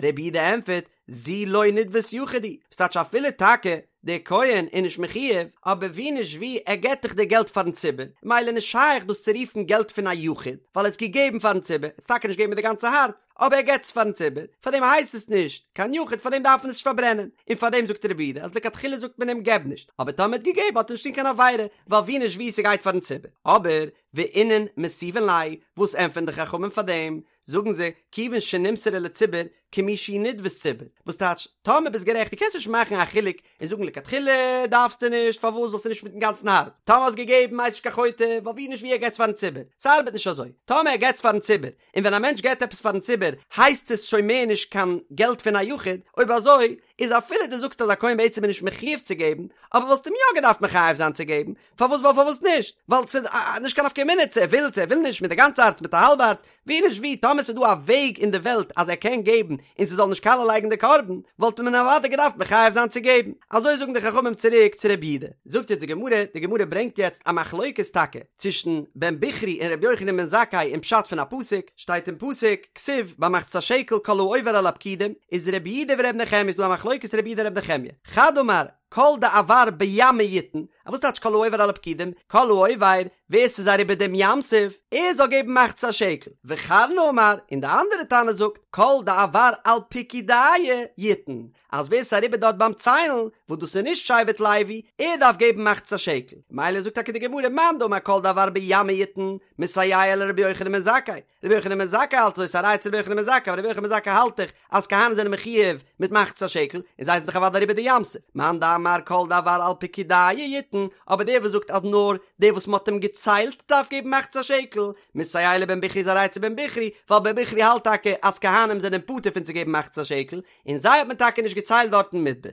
רבי יהודה ענטפערט, זו לא נדבת יחיד היא, וואס טייטש אפילו טאקע דער כהן איז נישט מחויב, אבער ווי נישט ווי ער געבט דאך די געלט פארן ציבור, ממילא נישט שייך דאס צו רופן געלט פון א יחיד, ווייל ער האט עס געגעבן פארן ציבור, ער האט עס טאקע נישט געגעבן מיט די גאנצע הארץ, אבער ער געבט עס פארן ציבור, פארדעם הייסט עס נישט קיין יחיד, פארדעם דארף מען עס נישט פארברענען, און פארדעם זאגט רבי יהודה אז לכתחילה זאגט מען אים געב נישט, אבער טאמער ער האט געגעבן האט ער נישט געטון קיין עבירה, ווייל ווי נישט ווי ס'גייט פארן ציבור. אבער ואינון מתיבין ליה, וואס ענטפערן די חכמים פאר דעם? זאגן זיי, כיוון שנמסרה לציבור, כמי שהיא נדבת ציבור, וואס טייטש, טאמער ביסט גערעכט, דו קענסט נישט מאכן א חילוק און זאגן לכתחילה דארפסטו נישט, פארוואס ווייל ס'איז נישט מיטן גאנצן הארץ, טאמער האסט געגעבן הייסט נישט קיין חוטא, ווייל ווי נישט ווי ער געטס פארן ציבור, ס'ארבעט נישט אזוי, טאמער ער געטס פארן ציבור, און ווען א מענטש געט עפעס פארן ציבור הייסט עס שוין מער נישט קיין געלט פון א יחיד, אויב אזוי איז אפילו דו זאגסט אז א כהן בעצם איז נישט מחויב צו געבן, אבער וואלסט אים יא געדארפט מחייב זיין צו געבן, פארוואס ווייל פארוואס נישט? ווייל ס'איז נישט קיין נפקא מינה צו ער וויל צו ער וויל נישט מיט די גאנצע הארץ מיט א האלבע הארץ, ווי נישט ווי טאמער ס'איז דא א וועג אין די וועלט אז ער קען געבן און ס'זאל נישט קאלע לייגן די קרבן, וואלט מען אוודאי געדארפט מחייב זיין צו געבן. אזוי זאגן די חכמים צוריק צו רבי יהודה. זאגט יעצט די גמרא, די גמרא ברענגט יעצט א מחלוקת טאקע צווישן בן בכרי און רבי יוחנן בן זכאי אין פשט פון א פסוק, שטייט אין פסוק, כתיב ביי מחצית השקל כל העובר על הפקודים, איז רבי יהודה ורבי נחמיה איז דא א מחלוקת רבי יהודה און רבי נחמיה, חד אמר, כל דעבר בימא יתן, א וואס טייטש כל העובר על הפקודים? כל העובר, ווער ס'איז אריבער דעם ים סוף, ער זאל געבן מחצית השקל. וחרנה אמר, און די אנדערע תנא זאגט, כל דעבר על פקודייא יתן, אז ווער ס'איז אריבער דארט ביים ציילן, וואס דאס איז נישט שבט לוי, ער דארף געבן מחצית השקל. מילא זאגט טאקע די גמרא, מאן דאמר כל דעבר בימא יתן, מסייע לרבי יוחנן בן זכאי, רבי יוחנן בן זכאי האלט אזוי, ס'איז א ראיה צו רבי יוחנן בן זכאי, ווייל רבי יוחנן בן זכאי האלט דאך אז כהנים זענען מחויב מיט מחצית השקל, און זיי זענען דאך אוודאי אריבער די ים סוף, מאן דאמר כל דעבר על פקודייא יתן, אבער דער וואס זאגט אז נאר דער וואס מ'האט אים געציילט דארף געבן מחצית השקל, מסייע לבן בכרי איז א ראיה צו בן בכרי, ווייל בן בכרי האלט טאקע אז כהנים זענען פטור פון צו געבן מחצית השקל, און זיי האט מען טאקע נישט געציילט דארט אין מדבר.